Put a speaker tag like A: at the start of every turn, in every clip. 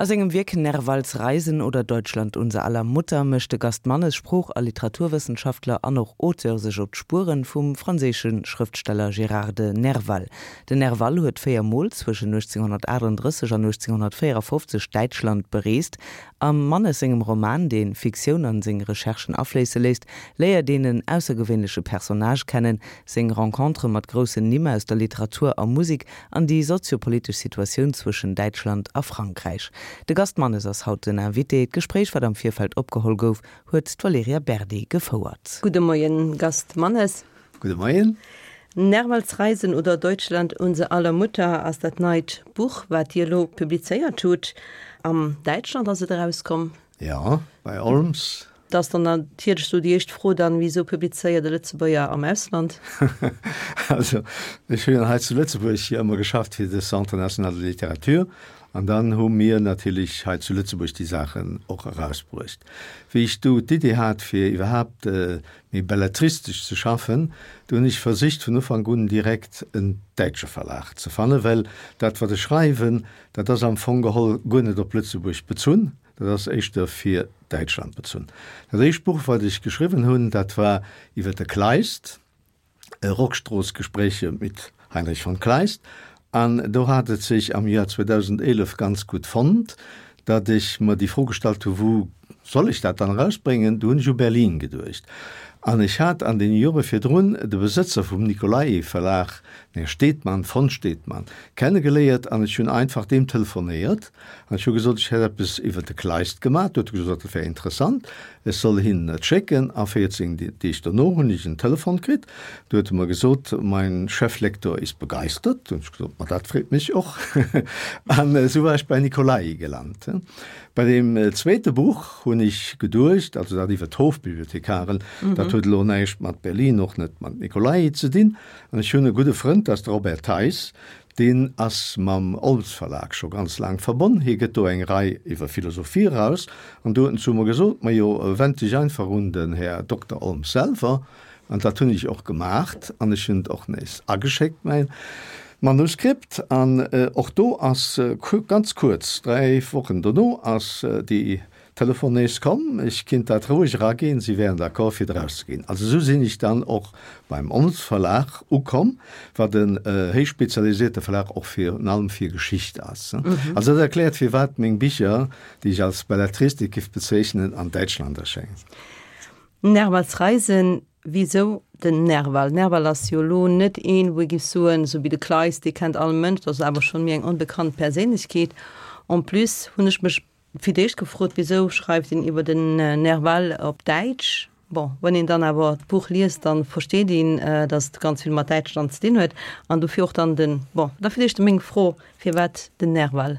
A: A sengem Wierk Nervals Reisen oder Deutschland unser aller Mutter mécht de Gast Mannes, Sprooch a Literaturwëssenschaftler an och Auteur, sech op d'Spueren vum franséische Schrëftsteller Gérard de Nerval. Den Nerval huet 4 Mol zwëschen 1838 an 1854 Däitschland bereest. Am Mannes sengem Roman, dee Fiktioun an seng Recherchen afléisse léisst, léiert een en aussergewéinleche Personnage kennen, seng Rencontere mat groussen Nimm aus der Literatur a Musek an déi soziopolitesch Situatioun zwëschen Däitschland a Frankräich. De Gast Mannes ass haut den Invité. D'Gespréich, wat am Virfeld opgeholl gouf, huet d'Valerija Berdi gefouert.
B: Gudde Moien, Gast Mannes.
C: Gudde Moien.
B: Nervals Reisen oder Deutschland, unser aller Mutter ass dat neit Buch, wat Dir elo publizéiert hutt. Am Däitschland ass et erauskomm.
C: Jo, bei Olms.
B: Da ass dann natierlech sou déi éischt Fro dann, Wisou publizéiert e Lëtzebuerger am Ausland?
C: Also, ech hunn hei zu Lëtzebuerg jo ëmmer geschafft fir de Centre national de littérature an dann hu mir natierlech hei zu Lëtzebuerg déi Saachen och erausbruecht. Wéi ech du d'Idee hat fir iwwerhaapt méi belletristesch ze schaffen, du hunn ech versicht vun Ufank un direkt en däitsche Verlag ze fannen, well dat wat ech schreiwen, dat ass am Fong geholl guer net op Lëtzebuerg bezunn. Dat ass éischter fir Däitschland bezunn. Dat éischt Buch, wat ech geschriwwen hunn, dat war iwwer de Kleist, Rockstrooss-Gespräche mit Heinrich von Kleist. An do hat et sech am Joer 2011 ganz gutt fonnt, datt ech mer déi Fro gestallt hu, Wou soll ech dat dann erausbréngen? Du hunn ech u Berlin geduecht. An ech hat an deene Jore virdrun de Besëtzer vum Nicolai-Verlag, den Här Stedman, von Stedman, kennegeléiert an ech hunn einfach deem telefonéiert An ech hu gesot, ech hätt eppes iwwer de Kleist gemaach. Du huet e gesot, dat wär interessant, ech soll hinnen et schécken. A 14 Deeg dono hunn ech en Telefon kritt, du huet e mer gesot, Mein Cheflektor ist begeistert. Du hunn ech gesot, ma dat freet mech och. An esou war ech bei Nicolai gelant. Bei deem zweete Buch hunn ech geduecht, also dat iwwer d'Hofbibliothekaren, dat huet elo näischt mat Berlin, och net mat Nicolai ze dinn. An ech hunn e gudde Frënd, dat ass de Robert Theis, Deen ass mam Olms Verlag scho ganz laang verbonn. Hie gëtt do eng Rei iwwer Philosophie eraus. An do huet en zu mer gesot, Majo, wend dech einfach un den Här Dokter Olms selwer. An dat hunn ech och gemaacht. An ech hunn et och nees ageschéckt, mäin Manuskript. An och do ass ganz kuerz, 3 Wochen dono, ass déi Telefon nees komm, ech kinnt dat roueg eraginn, si wären d'accord fir et erauszeginn. Also esou sinn ech dann och beim Ons Verlag ukomm, wat en héich spezialisierte Verlag och virun allem fir Geschicht ass. Also dat erkläert firwat meng Bicher, déi ech als Belletristik giff bezeechnen, an Däitschland erschéngen.
B: Nervals Reisen, Wisou den Nerval? Nerval ass jo elo net een, wou ee giff soen, esou wéi de Kleist, dee kennt all Mënsch, dat ass awer schonn méi eng onbekannt Perséinlechkeet. En plus hunn ech mech Fir d'éischt gefrot, wisou schreift een iwwer den Nerval op Däitsch? Bon, wann een dann awer d'Buch liest, dann versteet een, dass et ganz vill mat Däitschland ze dinn huet. An dofir och dann den, bon, da fir d'éischt meng Fro, firwat den Nerval?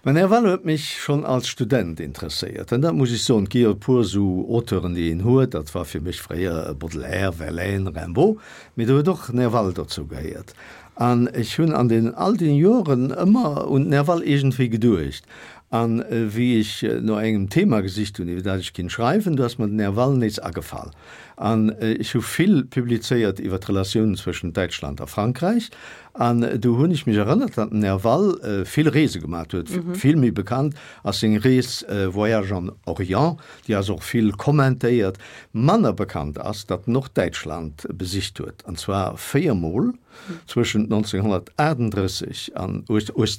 C: Mä Nerval huet mech schonn als Student interesséiert. An dat muss ech soen, et gi jo e puer esou Auteuren, déi een huet, dat war fir mech fréier Baudelaire, Verlaine, Rimbaud, mee do huet och Nerval dozou gehéiert. An ech hunn an den all den Joren ëmmer un Nerval iergendwéi geduecht. An wéi ech no engem Thema gesicht hunn, iwwer dat ech kinnt schreiwen, du ass mer den Nerval nees agefall. An ech hu vill publizéiert iwwer d'Relatiounen zwëschent Däitschland a Frankräich. An du hunn ech mech erënnert, datt den Nerval vill Reese gemat huet. Vill méi bekannt ass seng Rees Voyage en Orient, déi ass och vill kommentéiert. Manner bekannt ass, datt en och Däitschland besicht huet, an zwar véiermol. Zwëschent 1938 an,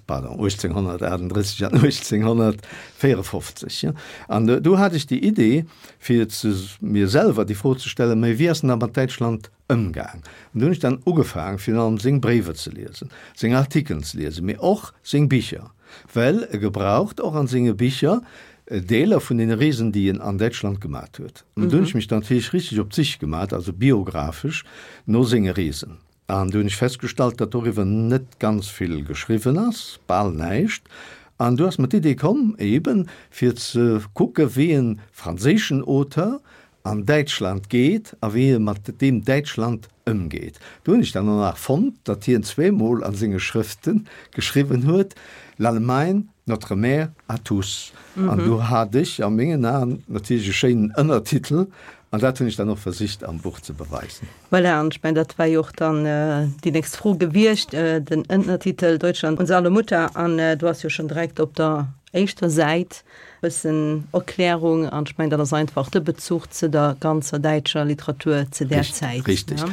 C: pardon, 1838 an 1854. An do hat ech déi Idee, fir ze mir selwer déi Fro ze stellen, Mä wéi ass en da mat Däitschland ëmgaang? An do hunn ech dann ugefaang, virun allem seng Bréiwer ze liesen, seng Artikelen ze liesen, mee och seng Bicher, well e gebraucht och an senge Bicher Deeler vun deene Reesen, déi en an Däitschland gemat huet. An do hunn ech mech dann natierlech richteg op d'Sich gemat, also biographesch, no senge Reesen. An do hunn ech festgestallt, datt doriwwer net ganz vill geschriwwen ass, bal näischt. An du ass mer d'Idee komm, eben fir ze kucke wéi e franséischen Auteur an Däitschland geet a wéi e mat deem Däitschland ëmgeet. Do hunn ech dann och nach fonnt, datt hien zweemol a senge Schrëfte geschriwwen huet, L'Allemagne, notre mère à tous. An do hat ech a mengen Aen natierlech e schéinen Ënnertitel, an dat hunn ech dann och versicht am Buch ze beweisen.
B: Voilà, an ech mengen, dat war jo och dann déi nächst Fro gewiescht, den Ënnertitel Deutschland, unser aller Mutter. An do ass jo schonn direkt op der. éischter Säit bëssen Erklärung an ech mengen dat ass einfach de Bezuch ze der ganzer däitscher Literatur ze där Zäit.
C: Richtig.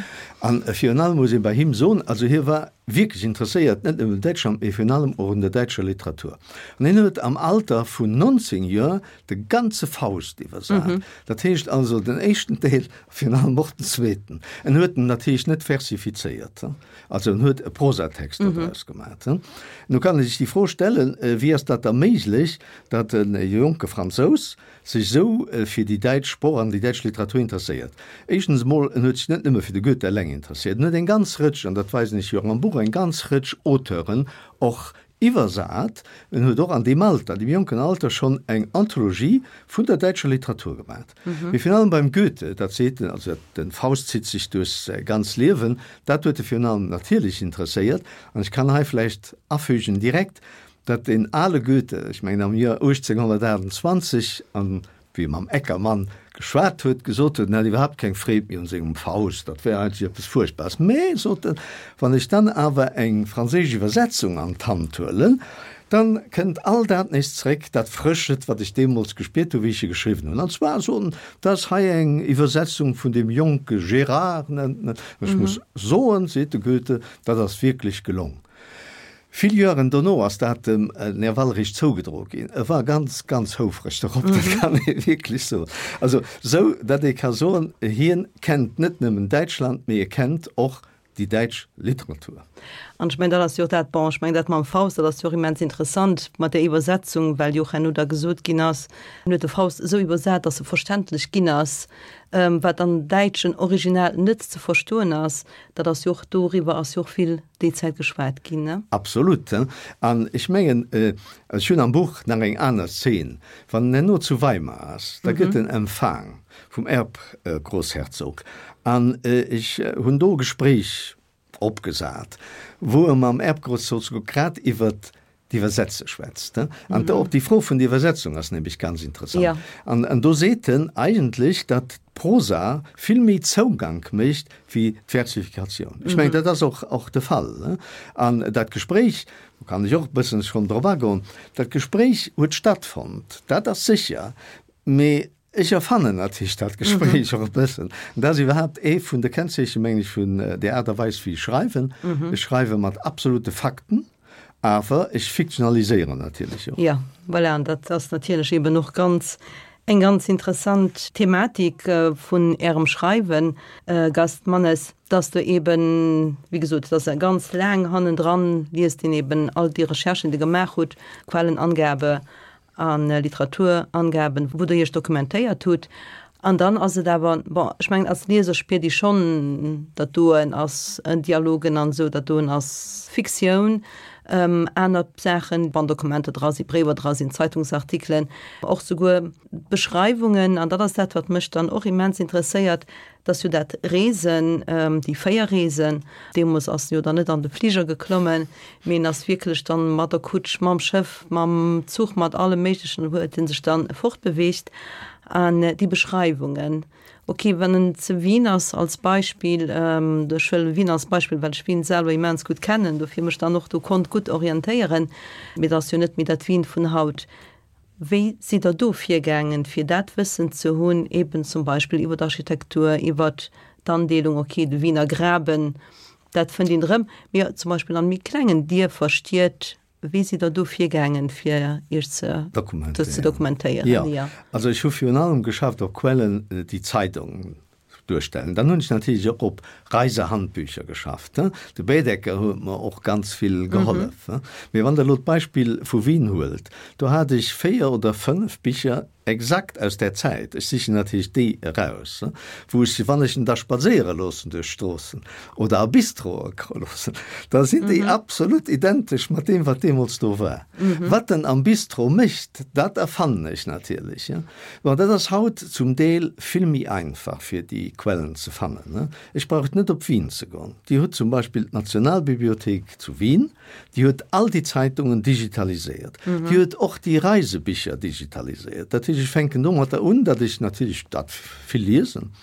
C: An virun allem muss ee bei him soen, also hie war wierklech interesséiert, net nëmmen un Däitschland, mee virun allem och un der däitscher Literatur. An hien huet am Alter vun 19 Joer de ganze Faust iwwersat. Dat heescht also den éischten Deel a virun allem och den zweeten. En huet en natierlech net versifizéiert, also en huet e Prosatext dodraus gemat. Nu kann ee sech déi Fro stellen, Wéi ass dat da méiglech, datt e jonke Fransous sech esou fir déi däitsch Sproch an déi däitsch Literatur interesséiert. Éischtens emol, en huet sech net nëmme fir de Goethe eleng interesséiert, en huet eng ganz Rëtsch, an dat weisen ech jo och am Buch, eng ganz Rëtsch Auteuren och iwwersat. En huet och an deem Alter, an deem jonken Alter schonn eng Anthologie vun der däitscher Literatur gemat. Mee virun allem beim Goethe, dat seet en, also den Faust zitt sech duerch säi ganz Liewen, dat huet e virun allem natierlech interesséiert. An ech kann hei vläicht afügen direkt, Datt deen ale Goethe, ech mengen am Joer 1828, an wéi e mam Eckermann geschwat huet, gesot huet, en hätt iwwerhaapt keng Freed méi un sengem Faust, dat wär eigentlech eppes Fuerchtbares. Mä, sot en, wann ech dann awer eng franséisch Iwwersetzung an d'Hand huelen, dann kënnt all dat nees zréck, dat Frëschet, wat ech deemools gespiert hu wéi ech e geschriwwen hunn. An zwar, sot en, dat ass hei eng Iwwersetzung vun deem jonke Gérard, nennt en et, an ech muss soen, seet de Goethe, dat ass wierklech gelong. Vill Joeren dono ass dat dem Nerval eréischt zougedroe ginn. E war ganz, ganz houfreg dorop, dat kann ee wierklech soen. Also sou, datt ee ka soen, hien kennt net nëmmen Däitschland, mee e kennt och déi däitsch Literatur.
B: An ech mengen, dat ass jo och dat, bon, ech mengen dat mam Faust, dat ass jo och immens interessant mat där Iwwersetzung, well jo och herno da gesot ginn ass, en huet de Faust esou iwwersat, datt e verständlech ginn ass, wat am däitschen Original net ze verstoen ass. Dat ass jo och, doriwwer ass jo och vill déi Zäit geschwat ginn, ne?
C: Absolut. An ech mengen, ech hunn am Buch nach eng aner Szene, wann en herno zu Weimar ass, da gëtt en empfaang vum Erbgrossherzog an ech hunn do e Gespréich opgesat, wou e mam Erbgrossherzog grad iwwert d'Iwwersetze schwätzt. An och déi Fro vun der Iwwersetzung ass nämlech ganz interessant. An do seet en eigentlech, datt d'Prosa vill méi Zougank mécht wéi d'Versifikatioun. Ech mengen, dat ass och och de Fall. An dat Gespréich, do kann ech och e bëssen schonn drop agoen, dat Gespréich huet stattfonnt, dat ass sécher, mee Ech erfannen natierlech dat Gespréich och e bëssen. An dat ass iwwerhaapt ee vun de Kennzeechen, mengen ech, vun där Aart a Weis, wéi ech schreiwen. Ech schreiwe mat absolute Fakten, awer ech fiktionaliséieren natierlech och.
B: Jo, voilà, an dat ass natierlech eeben och ganz, eng ganz interessant Thematik vun Ärem Schreiwen, Gast Mannes, dass Der eeben, wéi gesot, et ass ganz laang hannendran, liest een eeben all déi Recherchen, déi Der gemaach hutt, Quellenangabe a Literaturangaben, wou Der Iech dokumentéiert hutt. An dann ass et awer, bon, ech mengen, als Lieser spiert ee schonn, dat doen ass Dialogen an esou, dat doen ass Fiktioun. Aner Saachen, wann Dokumenter dra sinn, Bréiwer dra sinn, Zeitungsartikelen, och souguer Beschreiwungen. An dat ass dat, wat mech dann och immens interesséiert, Dat ass jo dat Reesen, déi 4 Reesen. Deemools ass en jo dann net an de Fliger geklommen, mee en ass wierklech dann mat der Kutsch, mam Schëff, mam Zuch, mat allem Méiglechen huet en sech dann fortbeweegt. An déi Beschreiwungen, ok, wann en zu Wien ass als Beispill, ech huelen Wien als Beispill, well ech Wien selwer immens gutt kennen, dofir mech dann och do konnt gutt orientéieren, mee et ass jo net méi dat Wien vun haut. Wéi sidd Der do virgaangen, fir dat Wëssen ze hunn, eben zum Beispill iwwer d'Architektur, iwwer d'Andeelung, okay, de Wiener Graben, dat fënnt een erëm, mee zum Beispill an méi klengen Dierfer, Stied, wéi sidd Der do virgaangen, fir Iech ze dokumentéieren?
C: Jo, also ech hu virun allem geschafft op Quellen, déi Zeidong duerstellen. Dann hunn ech natierlech och op Reisehandbücher geschafft. De Baedeker huet mer och ganz vill gehollef. Mee wann Der elo d'Beispill vu Wien huelt, do hat ech 4 oder 5 Bicher exakt aus där Zäit, ech sichen natierlech déi eraus, wou ech, wann ech en da spadséiere loossen duerch d'Stroossen oder a Bistroe loossen, da sinn déi absolut identesch mat deem, wat deemools do war. Wat en am Bistro mécht, dat erfannen ech natierlech. Bon, dat ass haut zum Deel vill méi einfach, fir déi Quellen ze fannen. Ech brauch net op Wien ze goen. Dir hutt zum Beispill d'Nationalbibliothéik zu Wien, déi huet all déi Zeitungen digitaliséiert. Déi huet och déi Reisebicher digitaliséiert. Dat heescht, ech fänken domatter un, datt ech natierlech dat vill liesen,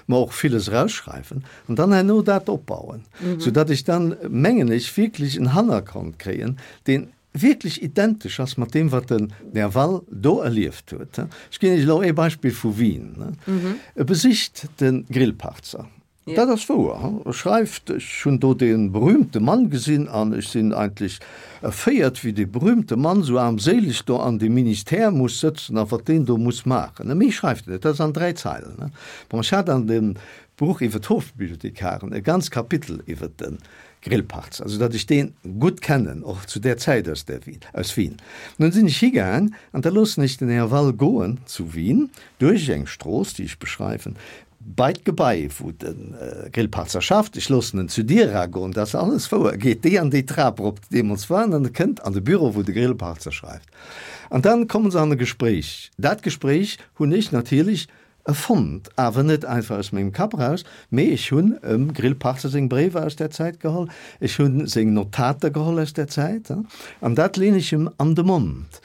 C: mer och villes erausschreiwen an dann herno dat opbauen, soudatt ech dann, mengen ech, wierklech en Hannergrond kréien, deen. wierklech identesch ass mat deem, wat den Nerval do erlieft huet. Ech ginn Iech elo ee Beispill vu Wien. E besicht de Grillparzer. Dat ass wouer. E schreift, Ech hunn do dee berühmte Mann gesinn an ech sinn eigentlech erféiert, wéi dee berühmte Mann esou aarmséileg do an deem Ministère muss sëtzen a wat deen do muss maachen. Méi schreift en net, dat ass an 3 Zeilen. Bon, ech hat an dem Buch iwwer d'Hofbibliothekaren e ganz Kapitel iwwer de Grillparzer, esou datt ech dee gutt kennen, och zu där Zäit aus der Wien, aus Wien. Nun sinn ech higaang an da loossen ech den Här Wall goen zu Wien duerch eng Strooss, déi ech beschreiwen, bei d'Gebai, wou de Grillparzer schafft. Ech loossen en zu Dier eragoen, dat ass alles wouer, geet déi an déi Trap erop, déi deemools war, an e kënnt an de Büro, wou de Grillparzer schreift. An dann komme se an e Gespréich. Dat Gespréich hunn ech natierlech Erfonnt, awer net einfach aus mengem Kapp eraus, mee ech hunn em Grillparzer seng Bréiwer aus där Zäit geholl, ech hu seng Notater geholl aus där Zäit, an dat leen ech em an de Mond.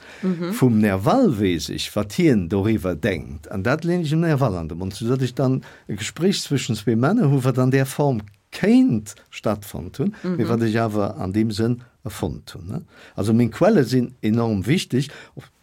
C: Vum Nerval weess ech, wat hien doriwwer denkt, an dat leen ech dem Nerval an de Mond, soudatt ech dann e Gespréich zwëschen zwee Männer hu wat an där Form kéint stattfonnt hunn, mee wat ech awer an deem Sënn erfonnt hunn. Also meng Quelle sinn enorm wichteg.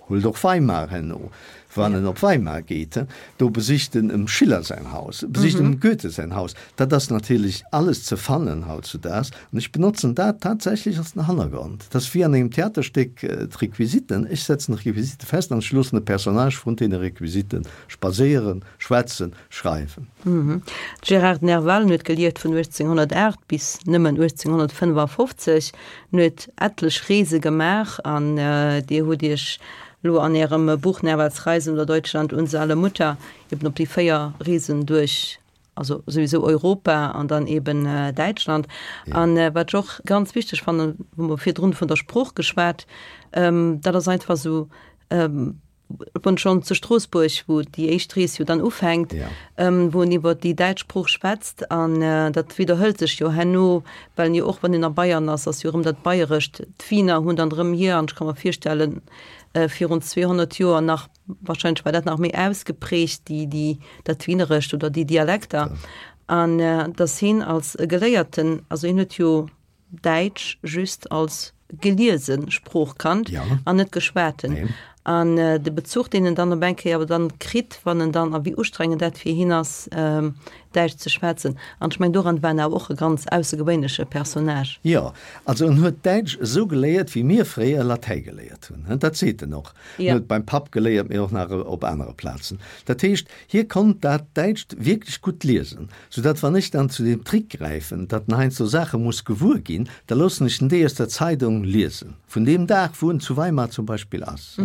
C: Huelt och Weimar herno, wann en op Weimar geet, do besicht en em Schiller säin Haus, besicht em Goethe säin Haus. Dat ass natierlech alles ze fannen hautzudaags an ech benotzen dat tatsächlech als den Hannergrond. Dat ass wéi an engem Theaterstéck d'Requisiten, ech setzen d'Requisite fest an ech loossen de Personnage vrun deene Requisite spadséieren, schwätzen, schreiwen.
B: Gérard Nerval huet gelieft vun 1808 bis nëmmen 1855. En huet etlech Reese gemaach an Dir hutt Iech elo an Ärem Buch Nervals Reisen oder Deutschland, unser aller Mutter eben op déi 4 Reesen duerch, also souwisou Europa an dann eben Däitschland. An wat ech och ganz wichteg fannen, hu mer virdrun vun der Sprooch geschwat, dat ass einfach esou, Wann schonn zu Stroossbuerg, wou déi éischt Rees jo dann ufänkt, ja. ähm, wou en iwwer déi däitsch Sprooch schwätzt an äh, dat widderhëlt sech jo herno, well en jo och wann en a Bayern ass, ass jo erëm dat Bayerescht. D'Wiener hunn dann erëm hier, an ech ka mer virstellen, äh, virun 200 Joer nach, wahrscheinlech war dat nach méi ausgeprägt, déi, déi, dat Wienerescht oder déi Dialekter. Ja. An äh, dass hien als Geléierten, also hien huet jo Däitsch just als geliese Sprooch kannt ja. an net geschwaten. Nee. An äh, de Bezuch, deen en dann op eng Kéier awer dann kritt, wann en dann, a wéi ustrengend dat fir hien ass, ähm, Däitsch ze schwätzen. An ech meng, doran war en awer och e ganz aussergewéinleche Personnage.
C: Jo, also en huet Däitsch esou geléiert, wéi mir fréier Latäi geléiert hunn. Dat seet en och. En ja. huet beim Papp geléiert, mee och nach op anere Plazen. Dat heescht, hie konnt dat Däitscht wierklech gutt liesen. Soudatt wann ech dann zu deem Trick gräifen, datt en heiansdo Saache muss gewuer ginn, da loossen ech en déi aus der Zeidong liesen, vun deem Dag, wou en zu Weimar zum Beispill ass.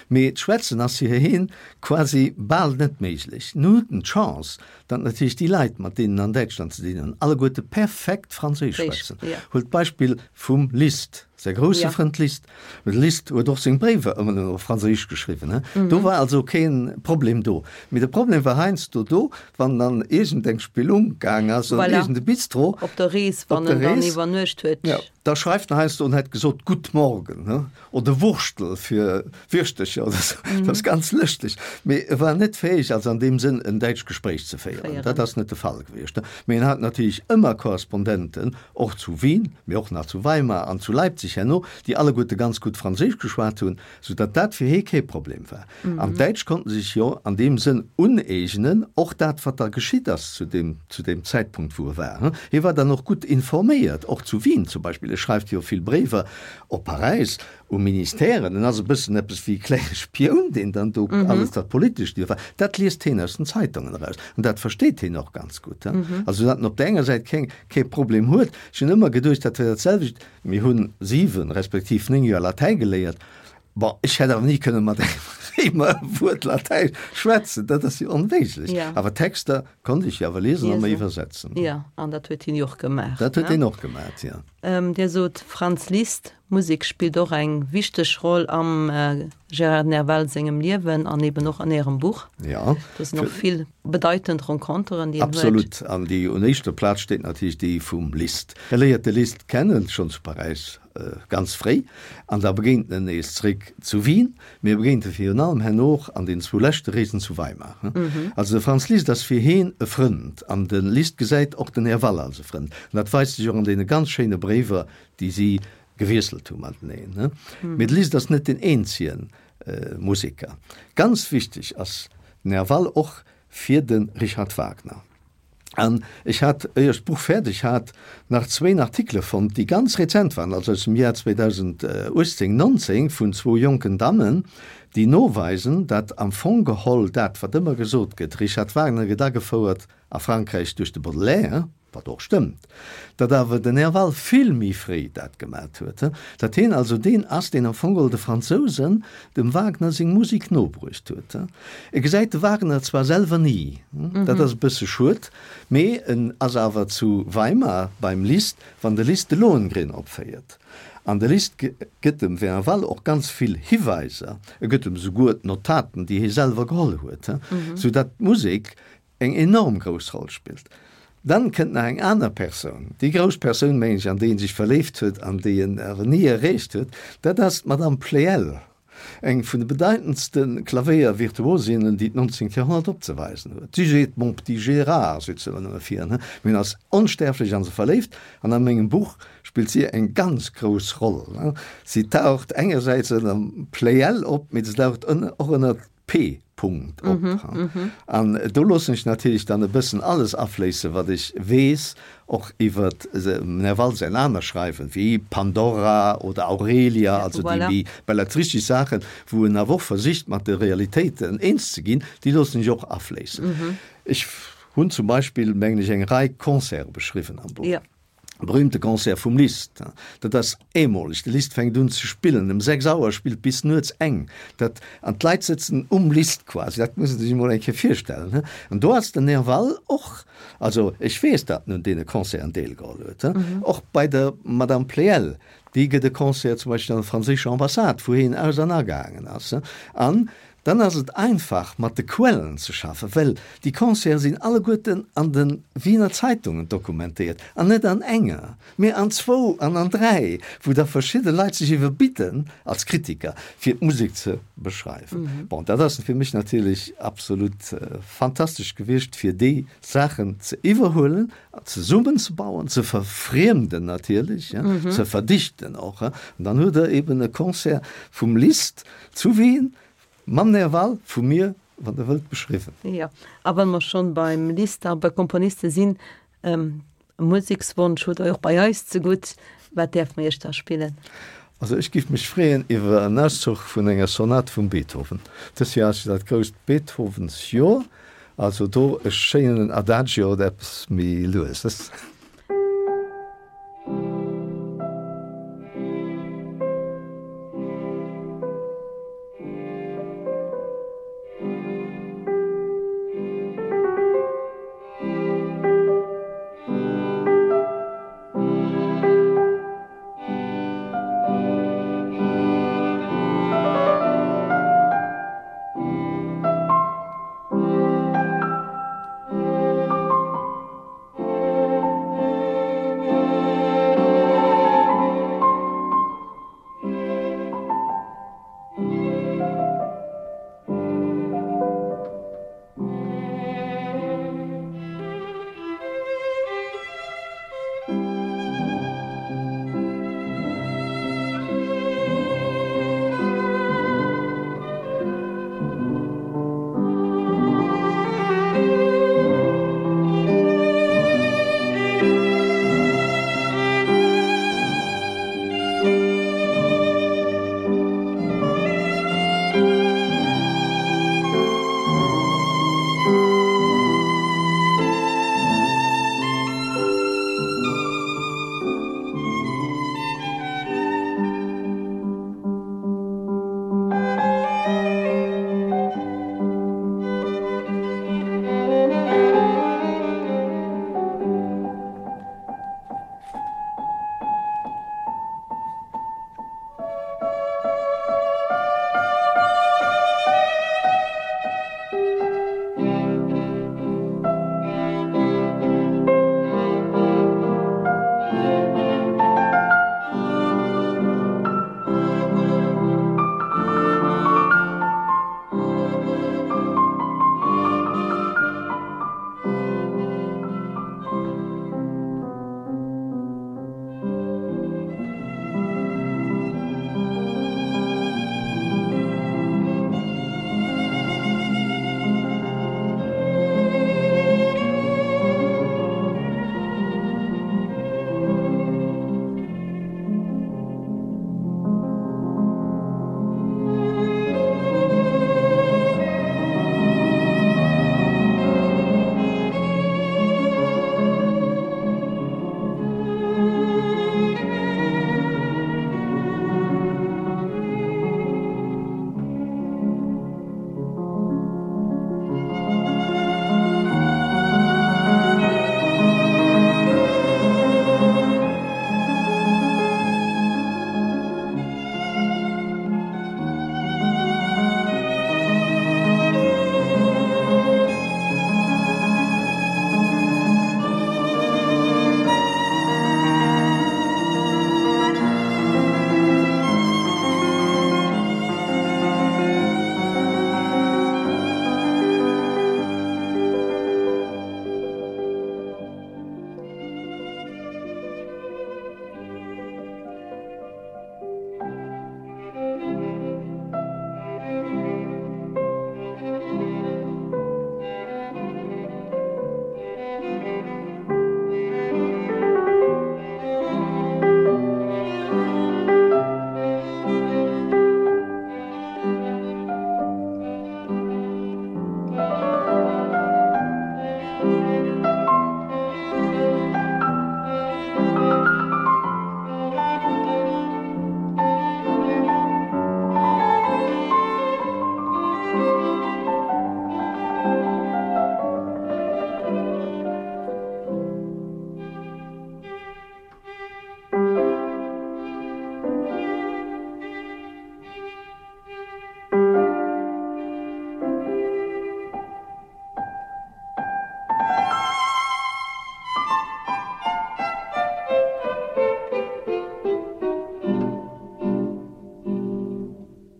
C: Mee d'Schwätzen ass fir hien quasi bal net méiglech. Nun huet en d'Chance, datt natierlech déi Leit, mat deenen en an Däitschland ze dinn hunn, alleguerte perfekt Franséisch schwätzen. Huelt d'Beispill vum Liszt. Säi grousse ja. Frënd Liszt. De Liszt huet och seng Bréiwer ëmmer nëmmen op Franséisch geschriwwen. He? Mm -hmm. Do war also keen Problem do. Mee de Problem war heiansdo do, wann dann iergendeng Spillung gaang ass oder voilà. iergende Bistro.
B: Op der Rees, wann en dann iwwernuecht huet.
C: Ja, da schreift en heiansdo an hätt gesot Gutt Morgen he? oder Wurschtel fir Wirschtercher oder so. Mm -hmm. Dat ass ganz lëschteg. Mee e war net fäeg, also an deem Sënn en däitscht Gespréich ze féieren. Féieren. Dat ass net de Fall gewiescht. Mee en hat natierlech ëmmer Korrespondenten, och zu Wien, mee och nach zu Weimar an zu Leipzig herno, déi alleguerte ganz gutt Franséisch geschwat hunn, soudatt dat fir hee kee Problem war. An d'Däitsch konnten sech jo an deem Sënn uneegnen, och dat, wat da geschitt ass zu deem, zu deem Zäitpunkt, wou e war. Hie war dann och gutt informéiert, och zu Wien zum Beispill. E schreift jo vill Bréiwer op Paräis, u Ministèren, en ass e bëssen eppes wéi e klenge Spioun, deen dann do alles dat Politescht iwwer, dat liest heen aus den Zeitungen eraus an dat versteet heen och ganz gutt. Also datt en op där enger Säit keng, kee Problem huet. Ech hunn ëmmer geduecht, dat wär dat selwecht, mir hunn 7 respektiv 9 Joer Latäi geléiert, bon, ech hätt awer ni kënne mat engem Réimer e Wuert Latäi schwätzen, dat ass jo onméiglech. Awer Texter konnt ech jo awer liesen a mer iwwersetzen.
B: Jo, an dat huet hien jo och gemaach.
C: Dat huet hien och gemaach, jo.
B: Dir sot Franz Liszt, Musek spillt och eng wichteg Roll am Gérard Nerval sengem Liewen an eben och an Ärem Buch.
C: Jo.
B: Do sinn och vill bedeitend Renconteren, déi en huet.
C: Absolut. An déi un éischter Plaz steet natierlech déi vum Liszt. E léiert de Liszt kennen, schonn zu Paräis ganz fréi, an da begéint en nees zréck zu Wien. Mee e begéint e virun allem herno och an den zwou leschte Reesen zu Weimar. Also de Franz Liszt ass fir heen e Frënd an de Liszt gesäit och den Nerval als e Frënd. An dat weist sech och an deene ganz schéine Bréiwer, déi si. gewiesselt hu mateneen. Mee de Liszt ass net deen eenzege Museker. Ganz wichteg ass Nerval och fir de Richard Wagner. An ech hat, éier ech d'Buch fäerdeg hat, nach zwéin Artikele fonnt, déi ganz rezent waren, also aus dem Jar 2018, 19, vun zwou jonken Dammen, déi noweisen, datt am Fong geholl dat, wat ëmmer gesot gëtt, Richard Wagner gëtt agefouert a Frankräich duerch de Baudelaire, wat och stëmmt, datt awer den Nerval vill méi fréi dat gemat huet, datt hien also deen ass, deen am Fong geholl de Fransousen dem Wagner seng Musek nobruecht huet. E gesäit de Wagner zwar selwer ni, dat ass e bësse schued, mee en ass awer zu Weimar beim Liszt, wann de Liszt de Lohengrin opféiert. An de Liszt gëtt dem Nerval och ganz vill Hiweiser, e gëtt em souguer d'Notaten, déi hie selwer geholl huet, sou datt d'Musek eng enorm grouss Roll spillt. Dann kënnt nach eng aner Persoun, déi grouss Persoun, mengen ech, an déi en sech verléift huet an déi en awer ni erreecht huet, dat ass d'Madame Pleyel, eng vun de bedeitendste Klavéiervirtuosinnen, déi d'nonzéngt Joerhonnert opzeweisen huet. Si seet, Mon petit Gérard, seet se ëmmer nëmme fir en, mee en ass onstierflech a se verléift an a mengem Buch spillt si eng ganz grouss Roll. Si taucht engersäits ënner Pleyel op, mee se taucht och ënner P. Punkt op. An do loossen ech natierlech dann e bëssen alles afléissen, wat ech weess, och iwwer dem Nerval säin aner Schreiwen, wéi Pandora oder Aurelia, also déi méi belletristesch Saachen, wou en awer och versicht, mat de Realitéiten eens ze ginn, déi loossen ech och afléissen. Ech hunn zum Beispill, mengen ech, eng Rei Concerte beschriwwen am Buch. Berühmte Concert vum Liszt, dat ass eemoleg, de Liszt fänkt un ze spillen ëm 6 Auer, spillt bis nuets eng, dat, an d'Leit sëtzen um Liszt quasi, dat muss ee sech emol eng Kéier virstellen, he. An do ass den Nerval och, also ech weess, datt en un deene Concerten deelgeholl huet, he, och bei der Madame Pleyel, déi gëtt e Concert zum Beispill an der franséischer Ambassade, wou hien aus an agaangen ass, he, an Dann ass et einfach mat de Quellen ze schaffen, well déi Concerte sinn alleguerten an de Wiener Zeitungen dokumentéiert, an net an enger, mee an zwou an an dräi, wou da verschidde Leit sech iwwerbidden als Kritiker, fir d'Musek ze beschreiwen. Bon, dat ass fir mech natierlech absolut fantastesch gewiescht, fir déi Saachen ze iwwerhuelen, zesummenzebauen, ze verfriemden natierlech, ze verdichten och. An dann huet Der eben e Concert vum Liszt Zu Wien? Mam Nerval vu mir, wann Der wëllt, beschriwwen.
B: Jo, a wa mer schonn beim Liszt a bei Komponiste sinn, e Musekswonsch hutt Der och bei eis zegutt. Wat däerfe mer Iech da spillen?
C: Also ech giff mech freeën iwwer en Auszuch vun enger Sonat vum Beethoven. Dëst Joer ass jo dat grousst Beethovensjoer, also do e schéinen Adagio oder eppes méi lueses.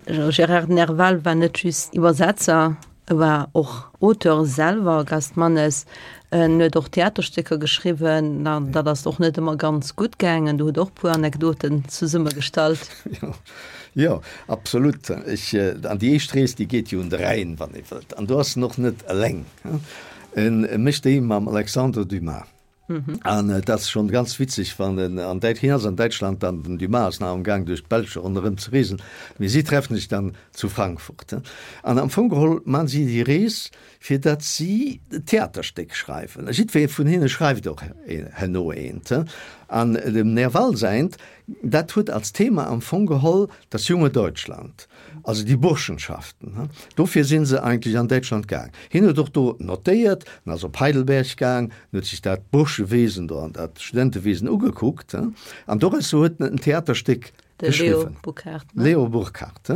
B: Gérard Nerval war net just Iwwersetzer, e war och Auteur selwer, Gast Mannes. En huet och Theaterstécker geschriwwen, an dat ass och net ëmmer ganz gutt gaangen. Do huet och puer Anekdoten zesummegestallt.
C: Jo, absolut. Ech, an déi éischt Rees, déi geet jo un de Rhäin, wann ee wëllt. An do ass en och net eleng. En mécht déi mam Alexandre Dumas. An et ass schonn ganz witzeg, wann en an Däit, hien ass an Däitschland an den Dumas ass nach am Gaang duerch d'Belsch ronderëm ze reesen, mee si treffen sech dann zu Frankfurt. An am Fong geholl man si déi Rees, fir datt si Theaterstéck schreiwen. A jiddweree vun hinne schreift och herno eent. An dem Nerval säint, dat huet als Thema am Fong geholl das junge Deutschland. Also déi Burschenschaften, dofir si se eigentlech an Däitschland gaang. Hien huet och do notéiert, en ass op Heidelberg gaang, en huet sech dat Burschewesen do an dat Studentewesen ugekuckt an doraus huet en en Theaterstéck geschriwwen.
B: De Leo Burkhardt, ne?
C: Leo Burkhardt.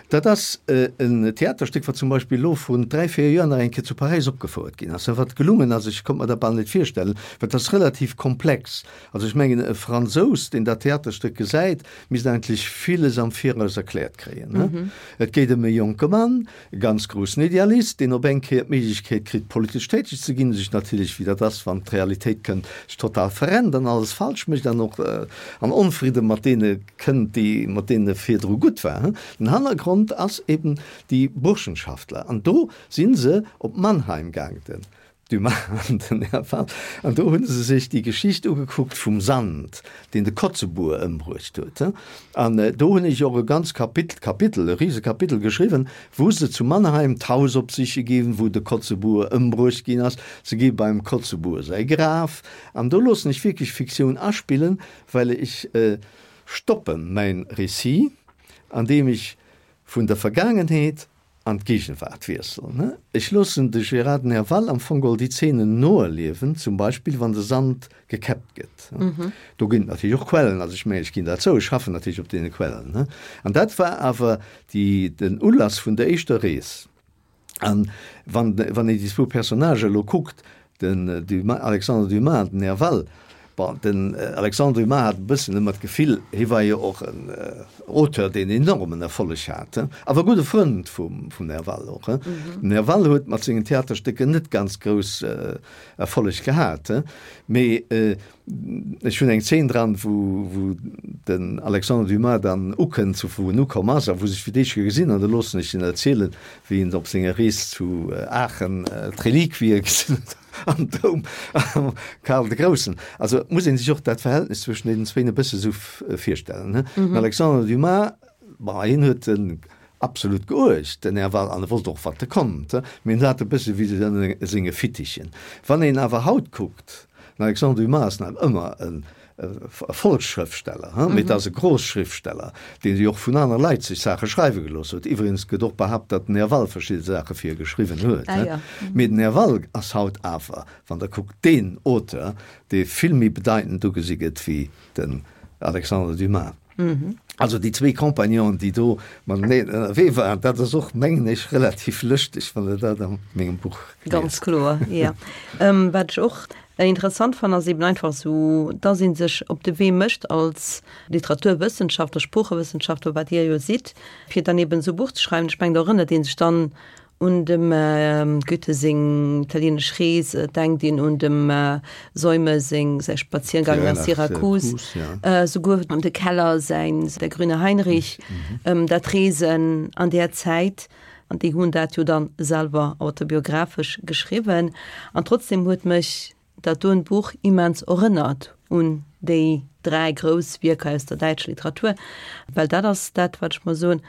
C: Dat ass en Theaterstéck, wat zum Beispill elo vrun 3, 4 Joer nach eng Kéier zu Paräis opgefouert ginn ass, wat gelungen ass. Ech konnt mer dat bal net virstellen, well et ass relativ komplex. Also ech mengen, e Fransous, deen dat Theaterstéck gesäit, misst eigentlech villes am Viraus erkläert kréien. Et geet ëm e jonke Mann, e ganz groussen Idealist, deen op eng Kéier d'Méiglechkeet kritt, politesch täteg ze ginn, sech natierlech, wéi dat ass, wann d'Realitéit kënnt, sech total verrennt an alles falsch mécht an och an Onfridde mat deene kënnt, déi, mat deenen e virdru gutt war. Den Hannergrond ass eben déi Burschenschaftler. An do si se op Mannheim gaang, den Dumas an den Nerval, an do hu se sech déi Geschicht ugekuckt vum Sand, deen de Kotzebue ëmbruecht huet. An do hunn ech och e ganz Kapitel, Kapitel, e Risekapitel geschriwwen, wou se zu Mannheim d'Haus opsiche ginn, wou de Kotzebue ëmbruecht ginn ass. Se gi beim Kotzebue säi Graf. An do loossen ech wierklech Fiktioun aspillen, well ech stoppe mäin Récit, andeem ech vun der Vergaangenheet an d'Gegenwart wiesselen. Ech loossen de Gérard Nerval am Fong geholl déi Zeenen noerliewen, zum Beispill wann de Sand gekäppt gëtt. Do ginn et natierlech och Quellen, also ech mengen, ech ginn dat zou, ech schaffen natierlech op deene Quellen. An dat war awer déi, den Ulass vun der éischter Rees. An wann, wann een déi zwou Personnagen elo kuckt, Den Dumas, Alexandre Dumas an den Nerval, bon, den Alexandre Dumas hat e bëssen ëmmer d'Gefill, hie war jo och en Auteur, deen enormen Erfolleg hat, awer e gudde Frënd vum Nerval och. Den Nerval huet mat sengen Theaterstécker net ganz grouss Erfolleg gehat, mee Ech hunn eng Zeen dran, wou, wou den Alexandre Dumas dann ukënnt, zu wou en ukomm ass a wou sech fir d'éischt Kéier gesinn an da loossen ech en erzielen, wéi en op senger Rees zu Aachen d'Reliquie gesinn huet am Doum am Karl de Groussen. Also et muss ee sech och dat Verhältnis zwëschen deenen zwéin e bësse sou virstellen, ne. Den Alexandre Dumas, bon, hien huet en absolut geuecht, den Här Wall, an e wollt och, wat e konnt, mee en hat e bësse wéi ënner senge Fittichen. Wann een awer haut kuckt, Den Alexandre Dumas ass nach ëmmer e Volksschrëftsteller, mee et ass e Großschriftsteller, deen jo och vun aner Leit sech Saache schreiwe gelooss huet. Iwwregens gëtt och behaapt, datt den Nerval verschidde Saache fir e geschriwwen huet. Mee den Nerval ass haut awer, wann Der kuckt, deen Auteur, dee vill méi bedeitend ugesi gëtt wéi den Alexandre Dumas. Also déi zwéi Compagnonen, déi do mateneen ënnerwee waren, dat ass och, mengen ech, relativ lëschteg, wann Der dat a mengem Buch
B: liest. Ganz kloer, jo. Wat ech och interessant fannen, ass eben einfach esou, dass ee sech op de Wee mécht als Literaturwëssenschaftler, Sproochewëssenschaftler, wat Dir jo sidd, fir dann eben esou e Buch ze schreiwen. Ech mengen, do erënnert ee sech dann Un dem Goethe seng italienesch Rees, et denkt een un dem Seume seng säi Spaziergang nach Syrakus, souguer de Keller säin Der grüne Heinrich, dat Reesen an där Zäit, an déi hunn dat jo dann selwer autobiographesch geschriwwen. An trotzdem huet mech dat doen Buch immens erënnert un déi 3 grouss Wierker aus der däitscher Literatur, well dat ass dat, wat ech mer soen,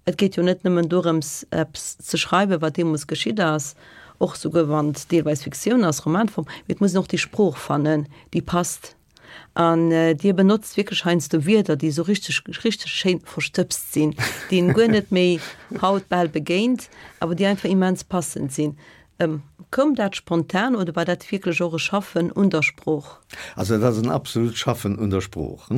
B: et geet jo net nëmmen dorëms, eppes ze schreiwen, wat deemools geschitt ass, och souguer wann et deelweis Fiktioun ass, Romanform, mee et muss een och déi Sprooch fannen, déi passt. An Dir benotzt wierklech heiansdo Wierder, déi esou richteg, richteg schéin verstëbst sinn, déi een guer net méi haut bal begéint, awer déi einfach immens passend sinn. Koum dat spontan oder war dat wierklech och e Schaffen un der Sprooch?
C: Also dat ass en absolut Schaffen un der Sprooch,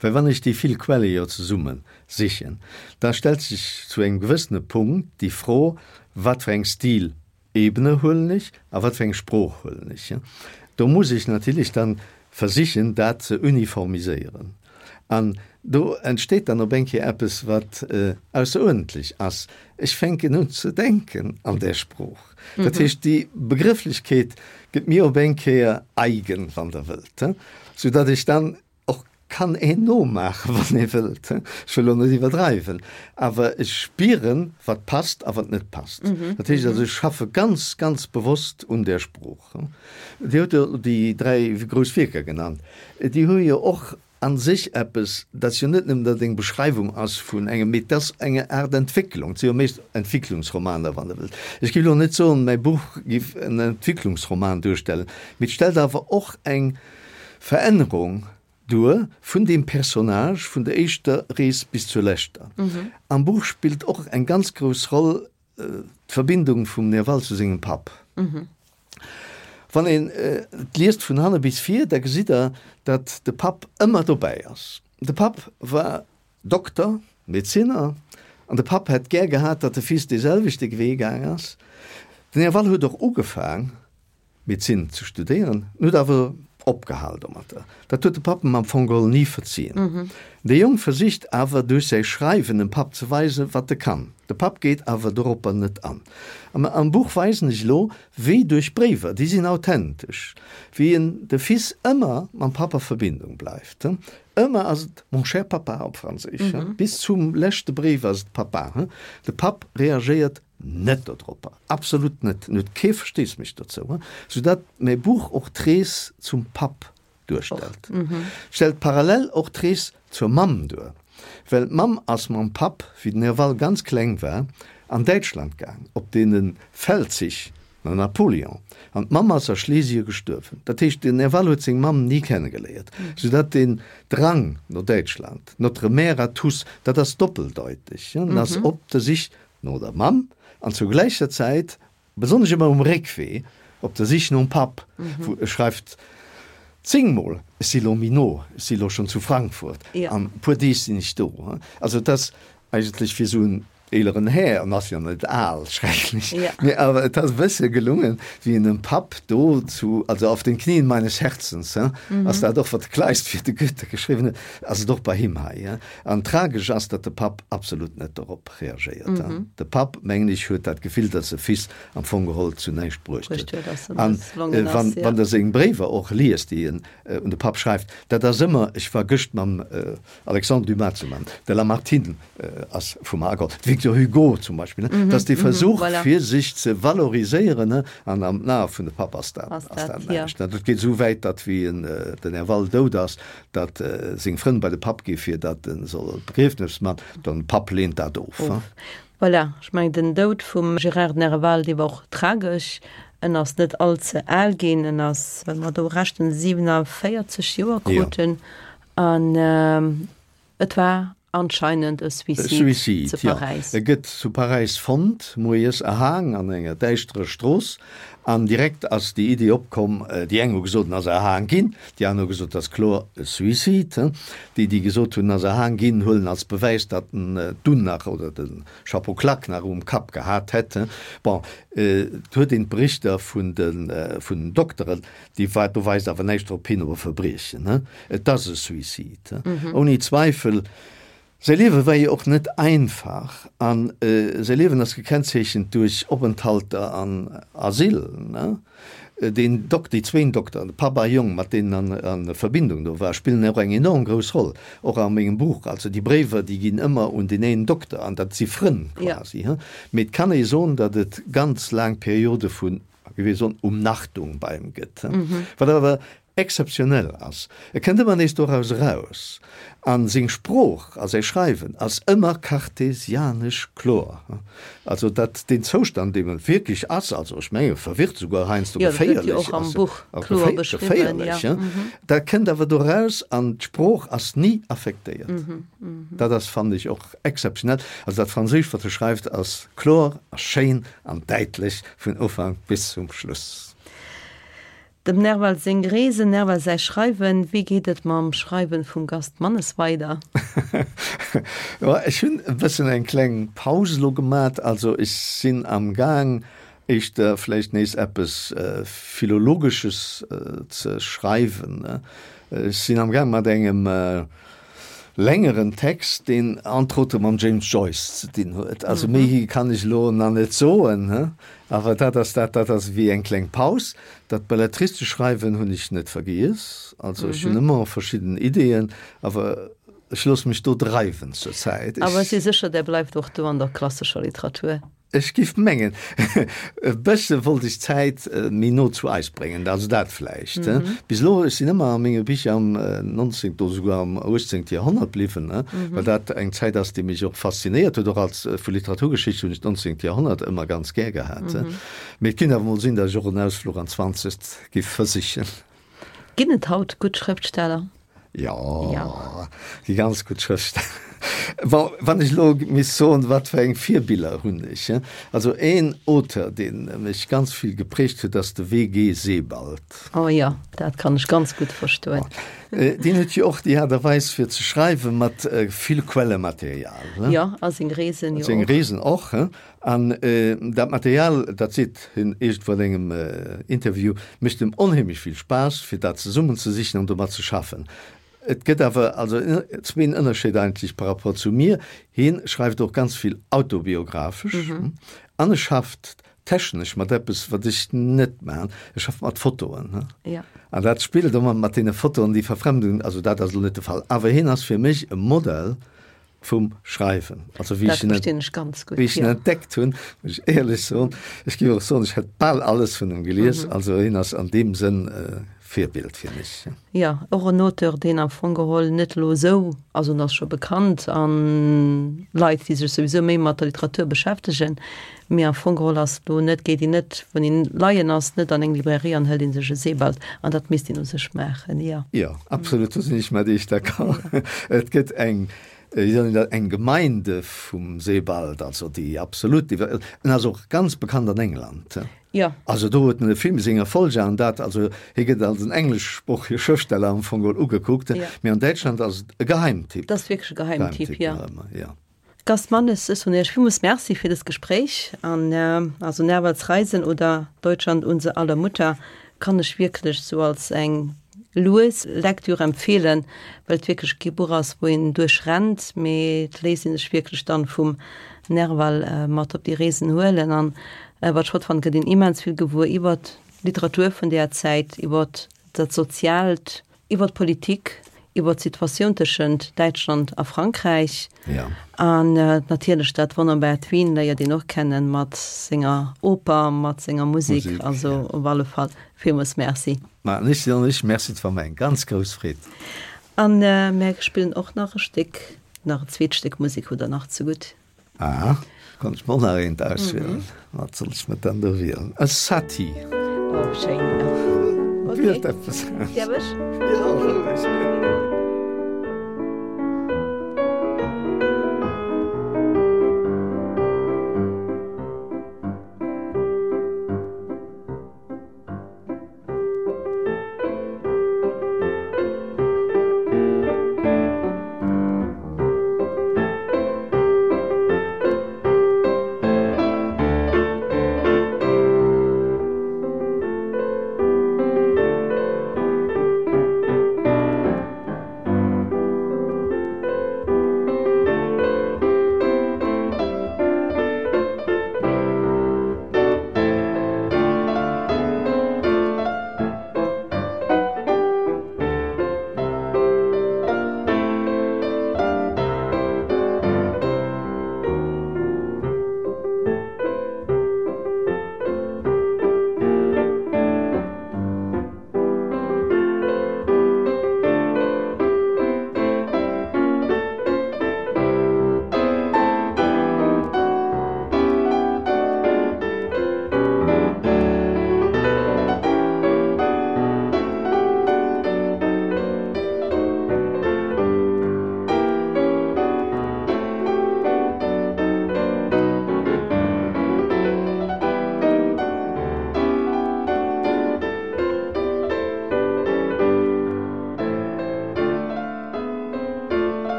C: well wann ech déi vill Quelle jo zesumme sichen, da stellt sech zu engem gewëssene Punkt déi Fro, wat fir eng Stilebene huelen ech a wat fir eng Sprooch huelen ech. Do muss ech natierlech dann versichen, dat ze uniformiséieren. An do entsteet dann op eng Kéier eppes, wat ausseruerdentlech ass. Ech fänken un ze denken an där Sprooch. Dat heescht, déi Begrëfflechkeet gëtt mir op eng Kéier eigen, wann Der wëllt, soudatt ech dann och kann een nomaachen, wann ee wëllt. Ech wëll elo net iwwerdreiwen, awer ech spieren, wat passt a wat net passt. Dat heescht also, ech schaffe ganz, ganz bewosst un där Sprooch. Dir hutt jo déi 3 grouss Wierker genannt. Déi hu jo och a sech eppes, dat ass jo net nëmmen, datt et eng Beschreiwung ass vun engem, mee et ass eng Aart Entwécklung. Et si jo meescht Entwicklungsromaner, wann Der wëllt. Ech géif elo net soen, mäi Buch géif en Entwicklungsroman duerstellen, mee et stellt awer och eng Verännerung duer vun deem Personnage vun der éischter Rees bis zur leschter. Am Buch spillt och eng ganz grouss Roll d'Verbindung vum Nerval zu sengem Papp. Wann een et liest vun hanne bis vir, da gesitt der, datt de Papp ëmmer dobäi ass. De Papp war Dokter, Medezinner, an de Papp hätt gär gehat, datt de Fils dee selwechte Wee gaang ass. Den Nerval huet och ugefaang, Medezin ze studéieren, en huet awer opgehal domatter. Dat huet de Papp em am Fong geholl ni verzien. De Jong versicht awer duerch säi Schreiwen dem Papp ze weisen, wat e kann. De Papp geet awer doropper net an. Am am Buch weisen ech elo, wéi duerch Bréiwer, déi sinn authentesch, wéi en de Fils ëmmer mam Papp a Verbindung bleift. Ëmmer ass et mon cher papa op Franséisch, bis zum leschte Bréif ass et Papa. De Papp reagéiert Net dodropper, absolut net, en huet kee Versteesmech dozou, soudatt mäi Buch och d'Rees zum Papp duerstellt. Stellt parallel och d'Rees zur Mamm duer, well d'Mamm ass mam Papp, wéi den Nerval ganz kleng war, an Däitschland gaang, op deene Feldzich no Napoléon, an d'Mamm ass a Schlesie gestuerwen. Dat heescht, den Nerval huet seng Mamm ni kennegeléiert, soudatt deen Drang no Däitschland, notre mère à tous, dat ass doppeldeuteg, en ass op der Sich no der Mamm an zur gläicher Zäit, besonnesch ëmmer um Réckwee, op der Sich nom Papp, wou e schreift zéngmol, Ech si lo méi no, ech si lo schonn zu Frankfurt, an e puer Deeg sinn ech do. Also et ass eigentlech fir esou en eeleren Här, en ass jo net al, schrecklech, mee awer et ass e bësse gelungen, wéi en dem Papp do zu, also auf den Knien meines Herzens, ass dat och, wat de Kleist fir de Goethe geschriwwen huet, ass et och bei him hei. An tragesch ass, datt de Papp absolut net dorop reagéiert. De Papp, mengen ech, huet dat Gefill, datt e Fils am Fong geholl zu näischt bruecht huet. An wann Der seng Bréiwer och liest, déi en un de Papp schreift, dat ass ëmmer, ech war gëscht mam Alexandre Dumas zu Mann, de Lamartine ass vu mer ageholl, de Victor Hugo zum Beispill, dat ass dee Versuch, fir sech ze valoriséieren, an am Ae vun de Papp ass dat näischt. Dat geet esou wäit, datt wéi den Nerval dout ass, datt seng Frënn bei de Papp gi fir datt en soll d'Begriefnes man, den Papp leent dat of.
B: Of. Voilà, ech mengen den Doud vum Gérard Nerval, dee war och tragesch. En ass net all ze al ginn, en ass, well mer do rechten, 47 Joer krut en an et war anscheinend e Suicide zu
C: Paräis. E gëtt zu Paräis fonnt, moies erhaang an enger däischterer Strooss. An direkt ass déi Iddi opkomm, déi eng hu gesot, en ass erhaang ginn, déi aner hu gesot, et ass kloer e Suicide. Déi, déi gesot hunn, en ass erhaang ginn, huelen als Bewäis, datt en d'Unn nach oder de Chapeau claque nach um Kapp gehat hätt. Bon, et huet een d'Berichter vun den Dokteren, Déi war, do weist awer näischt drop hin, op e Verbriechen. Et ass e Suicide, ouni Zweifel. Säi Liewe war jo och net einfach a säi Liewen ass gekennzeechent duerch Openthalter an Asyl. Deen Dok, déi zwéin Dokteren, de Papp a Jong, mat deenen en a Verbindung do war, spillen och eng enorm grouss Roll, och a mengem Buch. Also déi Bréiwer, déi ginn ëmmer un deen een Dokter an dat si Frënn quasi. Mee et kann ee soen, datt et ganz laang Periode vun wéi wir soen, Umnachtung bei em gëtt, wat awer exzeptionell ass. E kënnt ëmmer nees doraus eraus a seng Sprooch a säi Schreiwen ass ëmmer kartesianesch kloer. Also dat deen Zoustand, deem e wierklech ass, also ech menge verwirrt, souguer heiansdo geféierlech ass, geféierlech, dat kënnt awer doraus an d'Sprooch ass ni affektéiert. Dat ass, fannen ech, och exzeptionell. Also dat Franséischt, wat e schreift, ass kloer a schéin an däitlech. Vun Ufank bis zum Schluss.
B: Dem Nerval seng Reesen, Nerval säi Schreiwen, Wéi geet et mam Schreiwen vum Gast Mannes weider?
C: Jo, ech hunn e bëssen eng kleng Paus elo gemat. Also ech sinn am Gaang éischter vläicht nees eppes Philologesches ze schreiwen. Ech sinn am Gaang mat engem. Längeren Text, deen entre autres mam James Joyce ze dinn huet. Also méi kann ech elo nach net soen, he? Awer dat ass dat, dat ass ewéi eng kleng Paus. Dat belletristesch Schreiwen hunn ech net vergiess. Also ech hunn ëmmer verschidden Ideeën, awer ech loosse mech do dreiwen zur Zäit.
B: Awer ech si sécher, Der bleift och do an der klassescher Literatur.
C: Ech giff mengen, e bësse wollt ech d'Zäit méi no zu eis bréngen, also dat vläicht. Bis elo, ech sinn ëmmer a menge Bicher am 19. oder souguer am 18. Joerhonnert bliwwen, well dat eng Zäit ass, déi mech och faszinéiert huet. Och als vu Literaturgeschicht hunn ech d'nonzéngt Joerhonnert ëmmer ganz gär gehat. Mee et kinnt awer mol sinn, datt ech och en Ausfluch an d'Zwanzegt giff versichen.
B: Ginn et haut gutt Schrëftsteller?
C: Jo, gi ganz gutt Schrëftsteller. Bon, wann ech elo misst soen, wat fir eng Virbiller hunn ech? Also een Auteur, dee mech ganz vill geprägt huet, ass de WG. Sebald.
B: Oh jo, dat kann ech ganz gutt verstoen.
C: Deen huet jo och déi Aart a Weis fir ze schreiwen, mat vill Quellematerial.
B: Jo, a seng Reesen jo
C: och. Seng Reesen och. An dat Material, dat seet hien iergendwou an engem Interview, mécht em onheemlech vill Spaass, fir dat zesummenzesichen an domat ze schaffen. Et gëtt awer also zween Ënnerscheed eigentlech par rapport zu mir, Hien schreift och ganz vill autobiographesch an e schafft technesch mat eppes, wat ech net maachen, e schafft mat Fotoen. An dat spillt ëmmer mat deene Fotoen, déi Verfremdung, also dat ass elo net de Fall, awer hien ass fir mech e Modell, vum Schreiwen. Also wéi ech en,
B: ganz
C: gut, wéi ech en ja. entdeckt hunn, muss ech éierlech soen, ech géif och soen, ech hätt bal alles vun em gelies. Mhm. Also hien ass an deem Sënn äh, Virbild fir mech.
B: Ja, och en Auteur, deen am Fong geholl net elo esou, also en ass scho bekannt an Leit, déi sech souwisou méi mat der Literatur beschäftegen, mee am Fong geholl ass elo net, geet een net, wann een leien ass, net an eng Librairie an hëlt ee sech e Sebald an dat misst een u sech maachen, jo.
C: Jo, absolut, do sinn ech mat Iech d'accord. Et gëtt eng, wéi soll een dat, eng Gemeinde vum Sebald, also déi absolut, en ass och ganz bekannt an England.
B: Jo.
C: Also do huet en e Film seng Erfolger an dat, also hie gëtt als en engleschsproochege Schrëftsteller am Fong geholl ugekuckt, mee an Däitschland ass et e Geheimtipp.
B: Dat ass wierklech e Geheimtipp, jo. Jo. Gast Mannes, ech soen Iech villmools Merci fir dëst Gespréich an also Nervals Reisen oder Deutschland unser aller Mutter kann ech wierklech sou als eng lues Lektür empfeelen, well et wierklech kee Buch ass, wou een duerch rennt, mee et léisst ee sech wierklech dann vum Nerval mat op déi Reesen huelen an wat ech flott fannen, gëtt een immens vill gewuer iwwert d'Literatur vun deeër Zäit, iwwert dat Soziaalt. Iwwer d'Politik, iwwer d'Situatioun tëschent Däitschland a Frankräich.
C: Ja.
B: An natierlech dat wonnerbart Wien léiert een och kennen, mat senger Oper, mat senger Musek. Musek, Also ja. op alle Fall villmools Merci.
C: Ma ech soen lech Merci, et war mer eng ganz grouss Freed.
B: An mär spillen och nach e Stéck, nach e zweet Stéck Musek hutt Der nach zegutt.
C: Ah, konnt ech mer och nach eent auswielen. Wat soll ech mer dann do wielen? E Satie.
B: Oh, schéin.
C: Okay. Wielt eppes
B: aus. Däerf ech?
C: Jo, roueg.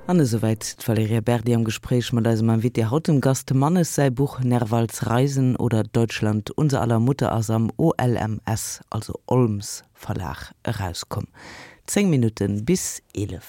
A: An esouwäit d'Valerija Berdi am Gespréich mat eisem Invité haut, dem Gast Mannes. Säi Buch Nervals Reisen oder Deutschland, unser aller Mutter ass am OLMS, also Olms Verlag, erauskomm. 10 Minutten bis 11.